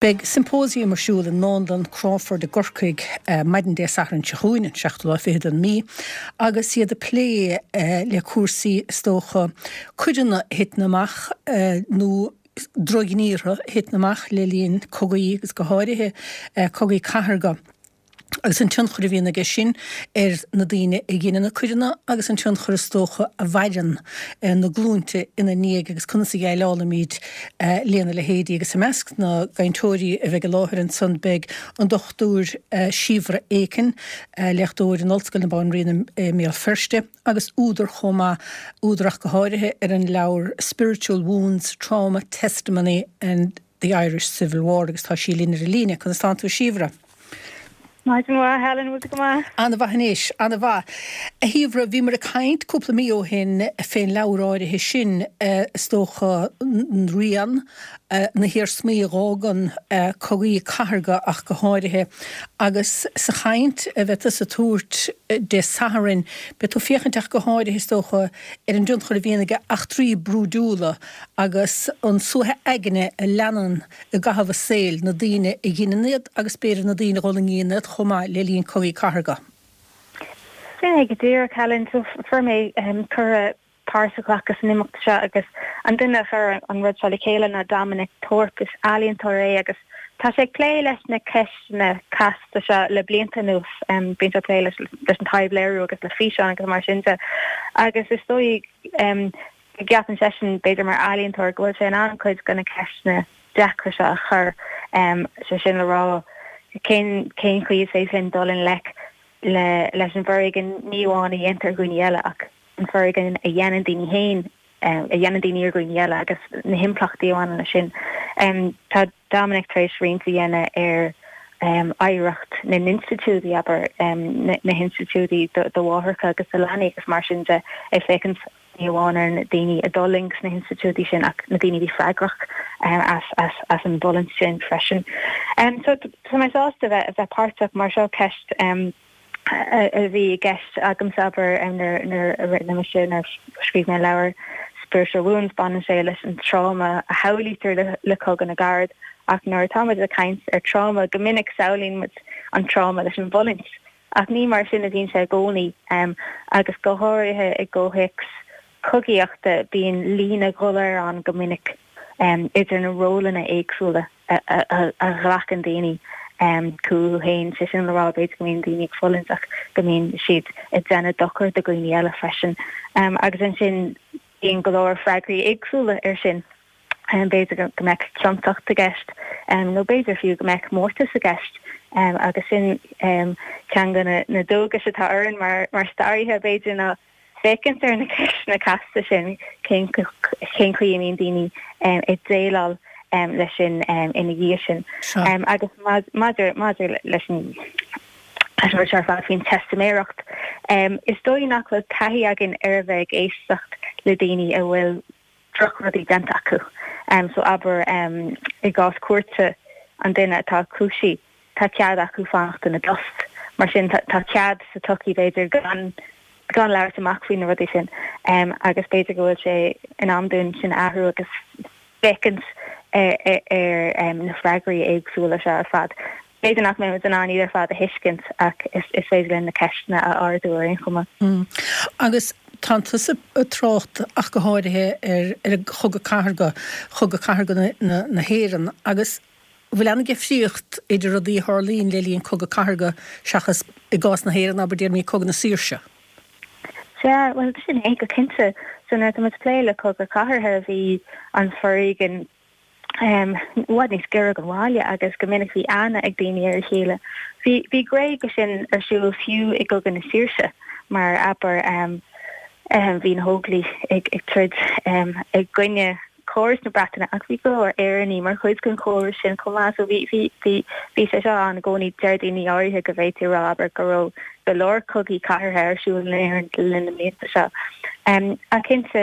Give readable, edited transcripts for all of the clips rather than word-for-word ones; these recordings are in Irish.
Beidh symposium ar siúl i nDánlann Crawford i gCorcaigh maidin Dé Sathairn seo chugainn, an seachtú lá fichead den mí, agus iad ag plé le cúrsaí, is dócha, coireanna a thiteann amach nó drochghníortha a thiteann amach le linn cogaí agus go háirithe cogaí cathartha. agus an tionchar a bhíonn aige sin ar na daoine a dheineann na coireanna agus an tionchar is dócha a mhaireann na glúinte ina ndiaidh agus conas a dhéileálaimid lena leithéidí. Agus i measc na gcainteoirí a bheidh i láthair ansan beidh an Dr Síobhra Aiken, léachtóir in Ollscoil na Banríona i mBéal Feirste agus údar chomh maith, údar ach go háirithe ar an leabhar Spiritual Wounds, Trauma, Testimony and. The Irish Civil War agus tá sí linn ar an líne. Conas tánn tú a Shíobhra? Maidin mhaith, Helen, bhfuil tú go maith? Ana-mhaith anois, ana-mhaith. A Shíobhra, bhíomar ag caint cúpla mí ó shin fén leabhar áirithe sin, is dócha, rian, na hiarsmaí a dh'fhágann cogaí cathartha ach go háirithe, agus sa chaint a bheidh tusa a tabhairt Dé Sathairn, beidh tú féachaint ach go háirithe, is dócha, ar an dtionchar a bhíonn ag eachtraí brúidiúla agus an suaitheadh aigne a leanann i gcaitheamh a saoil na daoine a dheineann iad agus b'fhéidir na daoine a dh'fhulaingíonn iad chomh maith le linn cogaí cathartha. Sin é go díreach, Helen. So fuair mé cuireadh páirt a ghlacadh san imeacht seo agus an duine a chuir an rud seo le chéile ná Dominic Thorpe. Is ealaíontóir é agus tá sé ag plé leis na ceisteanna casta seo le blianta anuas. Bíonn sé ag plé leis an taibhléiriú agus le físeáin agus mar sin de agus is dóigh go gceapann seisean, b'fhéidir mar ealaíontóir, go bhfuil sé in ann cuid de na ceisteanna deacra seo a chur, sé sin le rá, cén cén chaoi is féidir linn dul i ngleic le leis an bhforéigean ní amháin a dhéantar ar dhaoine eile ach an foréigean a dhéanann daoine féin, a dhéanann daoine ar dhaoine eile agus na himpleachtaí a bhaineann leis sin. Tá Dominic tar éis roinnt a dhéanamh ar oidhreacht na n-institiúidí, abair, na hinstitiúidí do mháithreacha agus do leanaí agus mar sin de, ag féachaint ní amháin ar na daoine a d'fhulaing sna hinstitiúidí sin ach na daoine a bhí freagrach as an bhfulaingt sin freisin. So tá mé sásta a bheith páirteach mar seo ceist a bhí i gceist agamsa abair nuair a rinne mise nuair a scríobh mé an leabhar Spiritual Wounds baineann sé leis an tráma a shamhlaítear le Cogadh na gCarad ach nuair atá muid ag caint ar tráma go minic samhlaíonn muid an tráma leis an bhfulaingt Ach ní mar sin a bhíonn sé i gcónaí, agus go háirithe i gcomhthéacs cogaíochta, bíonn líne dhoiléir ann go minic idir na rólanna éagsúla a ghlacann daoine chucu féin, sé sin le rá, b'fhéidir go mbíonn daoine ag fulaingt ach go mbíonn siad ag déanamh dochar do dhaoine eile freisin. Agus ansin bíonn go leor freagraí éagsúla air sin. B'fhéidir go mbeadh ciontacht i gceist nó b'fhéidir fiú go mbeadh mórtas i gceist agus sin ceann de na dualgais atá orainn mar staraithe, b'fhéidir, ná féachaint ar na ceisteanna casta sin, cén chaoi a mbíonn daoine ag déileáil leis sin ina dhiaidh sin. Agus maidir leis an rud seo ar fad faoin teistiméireacht, is dóigh nach bhfuil taithí againn ar a bheith ag éisteacht le daoine a bhfuil drochrudaí déanta acu. So abair i gcás cúirte an duine atá cúisithe, tá cead acu fanacht ina dtost. Mar sin tá cead sa tsochaí b'fhéidir gan gan labhairt amach faoi na rudaí sin agus b'fhéidir go bhfuil sé in am dúinn sin a athrú agus féachaint ar na freagraí éagsúla seo ar fad. B'fhéidir nach mbeidh muid in ann iad ar fad a thuiscint ach is féidir linn na ceisteanna a ardú ar aon chuma. Agus tánn tusa ag trácht ach go háirithe ar ar an Chogadh Cathartha, Chogadh Cathartha na hÉireann agus an bhfuil an-difríocht idir rudaí a tharlaíonn le linn Cogadh Cathartha seachas i gcás na hÉireann, abair, déarfaimid Cogadh na Saoirse? Sea, bhuel sin é go cinnte. So nuair atá muid ag plé le Cogadh Cathartha bhí an foréigean i bhfad níos giorra don bhaile agus go minic bhí aithne ag daoine ar a chéile. Bhí bhí gné de sin ar siúl fiú i gCogadh na Saoirse mar abair bhí na hÓglaigh ag ag troid i gcoinne córas na Breataine ach bhí go leor Éireannaigh mar chuid den chóras sin chomh maith so bhí bhí bhí bhí sé seo ann i gcónaí. Deir daoine áirithe go bhféadfaí a rá abair go raibh go leor cogaí cathartha ar siúl in Éirinn le linn na mblianta seo. Ach cinnte,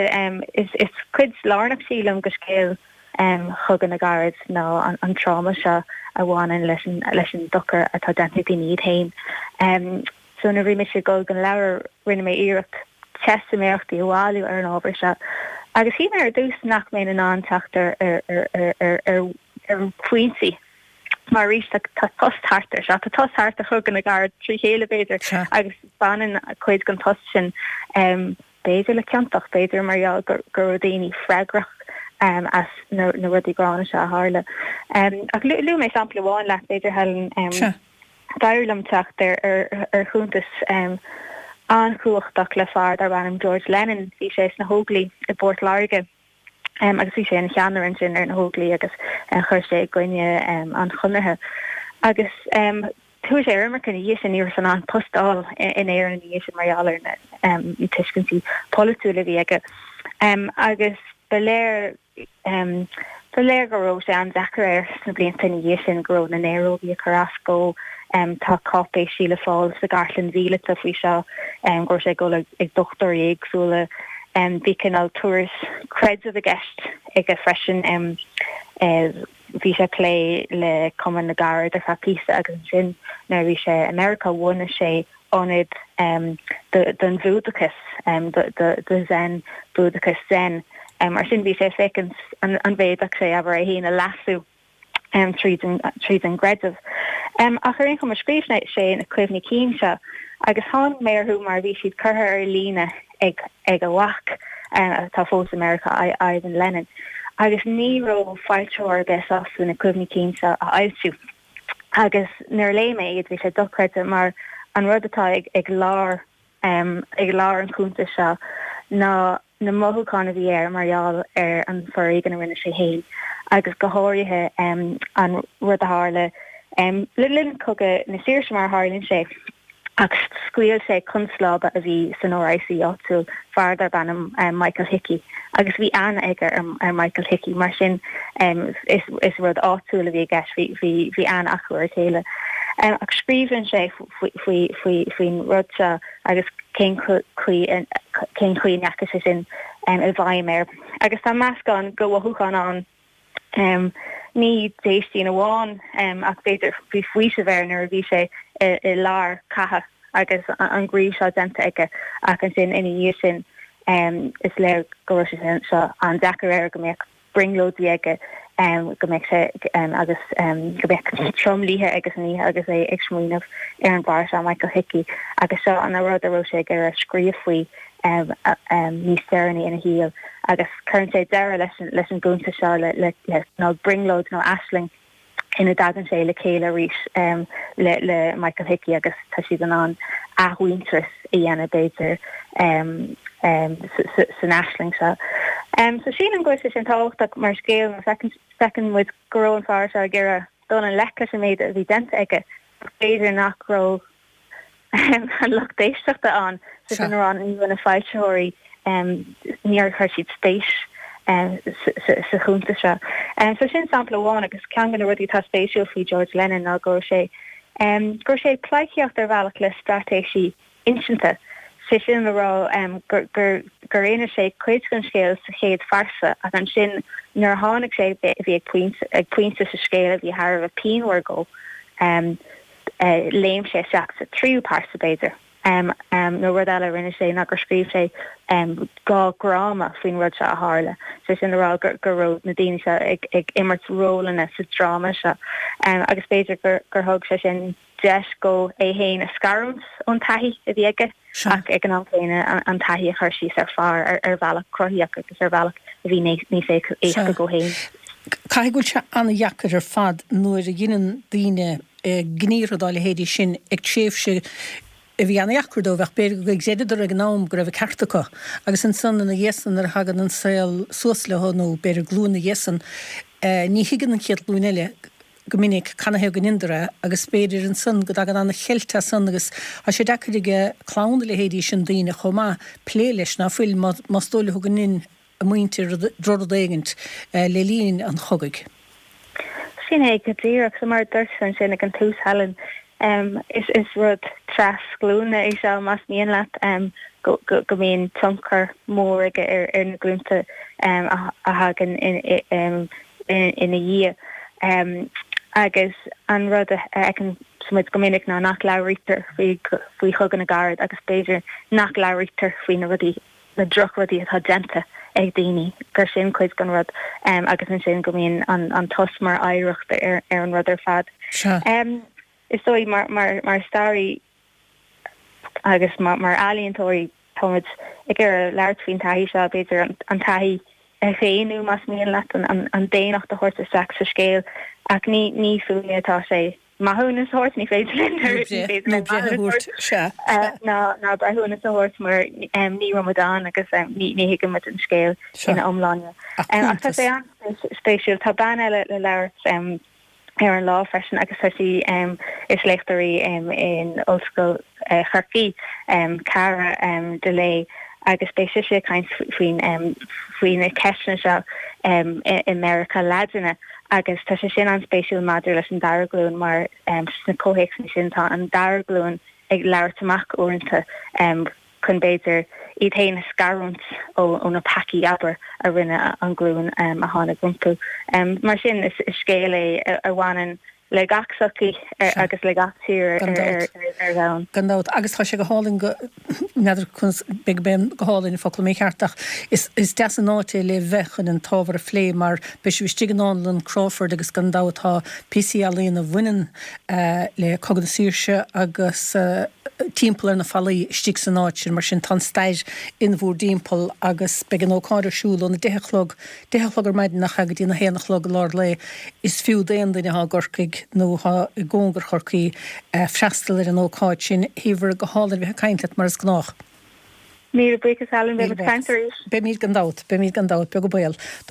is cuid lárnach, sílim, de scéal Chogadh na gCarad ná an tráma seo a bhaineann leis an dochar atá déanta ag daoine iad féin. So nuair a bhí mise ag dul don leabhar, rinne mé iarracht teistiméireachtaí a bhailiú ar an ábhar seo agus shíl mé ar dtús nach mbeinn in ann teacht ar ar phointí. Mar arís tá tost thart ar seo, tá tost thart ar Chogadh na gCarad trí chéile b'fhéidir agus baineann cuid den tost sin b'fhéidir le ciontacht, b'fhéidir mar gheall go raibh daoine freagrach as na rudaí gránna seo a tharla. Ach luaigh mé sampla amháin leat b'fhéidir Helen. D'éirigh liom teacht ar chuntas an-chumhachtach le fear darb ainm George Lennon. Bhí sé sna hÓglaigh i bPort Láirge. agus bhí sé ina cheannaire ansin ar na hÓglaigh agus chuir sé i gcoinne an Chonartha. Agus chuaigh sé ar imirce ina dhiaidh sin, ní raibh sé in ann post a fháil in Éirinn ina dhiaidh sin mar gheall ar na tuiscintí polaitiúla a bhí aige. Agus ba léir Ba léir go raibh sé an-deacair air sna blianta ina dhiaidh sin, go raibh na néarógaí ag cur as dó. Tá cáipéisí le fáil sa gCartlann Mhíleata faoi seo, go raibh sé ag dul ag dochtúirí éagsúla. Bhí cineál turas creidimh i gceist aige freisin. Bhí sé ag plé le Cumann na gCarad ar feadh píosa agus ansin nuair a bhí sé i Meiriceá bhunaigh sé ionad don Bhúdachas, do Zen, Búdachas Zen. Mar sin bhí sé ag féachaint an bhféadfadh sé, abair, é féin a leasú tríd an gcreideamh. Ach ar aon chuma, scríobh sé na cuimhní cinn seo agus tháinig mé orthu mar bhí siad curtha ar líne ag a mhac, atá fós i Meiriceá, Ivan Lennon, agus ní raibh foilsitheoir ar bith sásta na cuimhní cinn seo a fhoilsiú. Agus nuair a léigh mé iad, bhí sé dochreidte mar an rud atá ag lár, ag lár an chuntais seo ná na mothúcháin a bhí air mar gheall ar an foréigean a rinne sé féin agus go háirithe an rud a tharla le linn Cogadh na Saoirse mar a tharlaíonn sé. Ach scaoil sé constábla a bhí san RIC áitiúil, fear darb ainm Michael Hickey, agus bhí aithne aige ar Michael Hickey, mar sin is rud áitiúil a bhí i gceist, bhí aithne acu ar a chéile. Ach scríobhann sé faoin rud seo agus cén chaoi cén chaoi a ndeachaigh sé sin i bhfeidhm air. Agus tá meascán de mhothúcháin ann. Ní déistín amháin ach b'fhéidir bhí faoiseamh air nuair a bhí sé i lár catha agus an gníomh seo déanta aige ach ansin ina dhiaidh sin is léir go raibh sé seo an-deacair air, go mbeadh brionglóidí aige, go mbeadh sé agus go mbeadh tromluithe aige san oíche agus é ag smaoineamh ar an bhfear seo, Michael Hickey, agus seo an rud a raibh sé ag iarraidh scríobh faoi. níos deireanaí ina shaol agus cuireann sé deireadh leis an gcuntas seo le cineál brionglóid nó aisling ina dtagann sé le chéile arís le Michael Hickey agus tá siad in ann athmhuintearas a dhéanamh b'fhéidir san aisling seo. So sílim go bhfuil sé sin tábhachtach mar scéal mar feiceann muid go raibh an fear seo ag iarraidh dul i ngleic leis an méid a bhí déanta aige ach b'fhéidir nach raibh an lucht éisteachta ann, sé sin a rá, ní raibh na foilsitheoirí, níor chuir siad spéis sa chuntas seo. So sin sampla amháin agus ceann de na rudaí atá spéisiúil faoi George Lennon ná go raibh sé, go raibh sé ag pleidhcíocht ar bhealach le straitéisí insinte, sé sin le rá gur gur inis sé cuid den scéal sa chéad phearsa ach ansin nuair a tháinig sé bhí ag pointe ag pointe sa scéal a bhí thar a bheith pianmhar dó. Léim sé isteach sa tríú pearsa, b'fhéidir. Nó rud eile a rinne sé ná gur scríobh sé 2 dhráma faoin rud seo a tharla, sé sin le rá go raibh na daoine seo ag imirt rólanna sa dráma seo. Agus b'fhéidir gur thug sé sin deis dhó é féin a scarúint ón taithí a bhí aige. ach ag an am céanna an taithí a chur síos ar phár ar bhealach cruthaitheach agus ar bhealach a bhí níos éasca dhó féin. Caithfidh go bhfuil sé an-dheacair ar fad nuair a dheineann daoine gníomhartha dá leithéidí sin ag tréimhse a bhí an-dheacair dóibh ach b'fhéidir gur chreideadar ag an am go raibh an ceart acu agus ansan ina dhiaidh san nuair a thagann an saol suas leo nó b'fhéidir glúin ina dhiaidh san ní thuigeann an chéad ghlúin eile go minic canathaobh go ndeineadar é agus b'fhéidir ansan go dtagann an-cheilt as san agus tá sé deacair ag clann a leithéidí sin daoine chomh maith plé leis ná fuil más dóigh leo go ndein a muintir drochrud éigint le linn an chogaidh. Sin é go díreach. So mar a dúirt tú ansin ag an tús Helen, is rud trasghlúine é seo más mian leat, go mbíonn tionchar mór aige ar na glúnta a thagann ina dhiaidh. Agus an rud a fheiceann muid go minic ná nach labhraítear faoi Chogadh na gCarad agus b'fhéidir nach labhraítear faoi na rudaí, na drochrudaí atá déanta. ag daoine, gur sin cuid den rud agus ansin go mbíonn an tost mar oidhreacht ar an rud ar fad. Is dóigh mar staraí agus mar ealaíontóirí táimid ag iarraidh labhairt faoin taithí seo, b'fhéidir an taithí a dhaonnú más mian leat, an daonnacht a thabhairt isteach sa scéal ach ní fúinne atá sé maithiúnas a thabhairt, ní féidir linn ní féidir linn maithiúnas a thabhairt ná breithiúnas a thabhairt mar ní raibh muid ann agus ní thuigeann muid an scéal ina iomláine. Ach tá sé an-spéisiúil. Tá bean eile le labhairt ar an lá freisin agus tá sí, is léachtóir í in Ollscoil Chorcaí, Cara Delay, agus beidh sise ag caint faoin faoi na ceisteanna seo i Meiriceá Laidine agus tá sé sin an-spéisiúil maidir leis an dara glúin mar sna comhthéacsanna sin tá an dara glúin ag labhairt amach uaireanta chun b'fhéidir iad féin a scarúint ó na peacaí, abair, a rinne an ghlúin a tháinig rompu. Mar sin, is scéal é a bhaineann le gach sochaí agus le gach tír ar domhan. Gan dabht. Agus tá sé go hálainn go, n'fheadar conas, b'fhéidir gurb é go hálainn an focal mícheart ach is deas an áit é le bheith chun an t-ábhar a phlé mar beidh sibh istigh i nDánlann Crawford agus gan dabht tá píosaí ealaíona a bhaineann le Cogadh na Saoirse agus timpeall ar na fallaí istigh san áit sin, mar sin tá an stair in bhúr dtimpeall agus beidh an ócáid ar siúl óna deich a chlog, deich a chlog ar maidin nach ea, go dtí na haon a chlog i lár lae. Is fiú d'aon duine atá i gCorcaigh nó atá i gcóngar Chorcaí freastal ar an ócáid sin. A Shíobhra, go hálainn a bheith ag caint leat mar is gnách. Míle buíochas Helen, beimid ag caint arís. Beimid gan dabht, beimid gan dabht, beag an baol.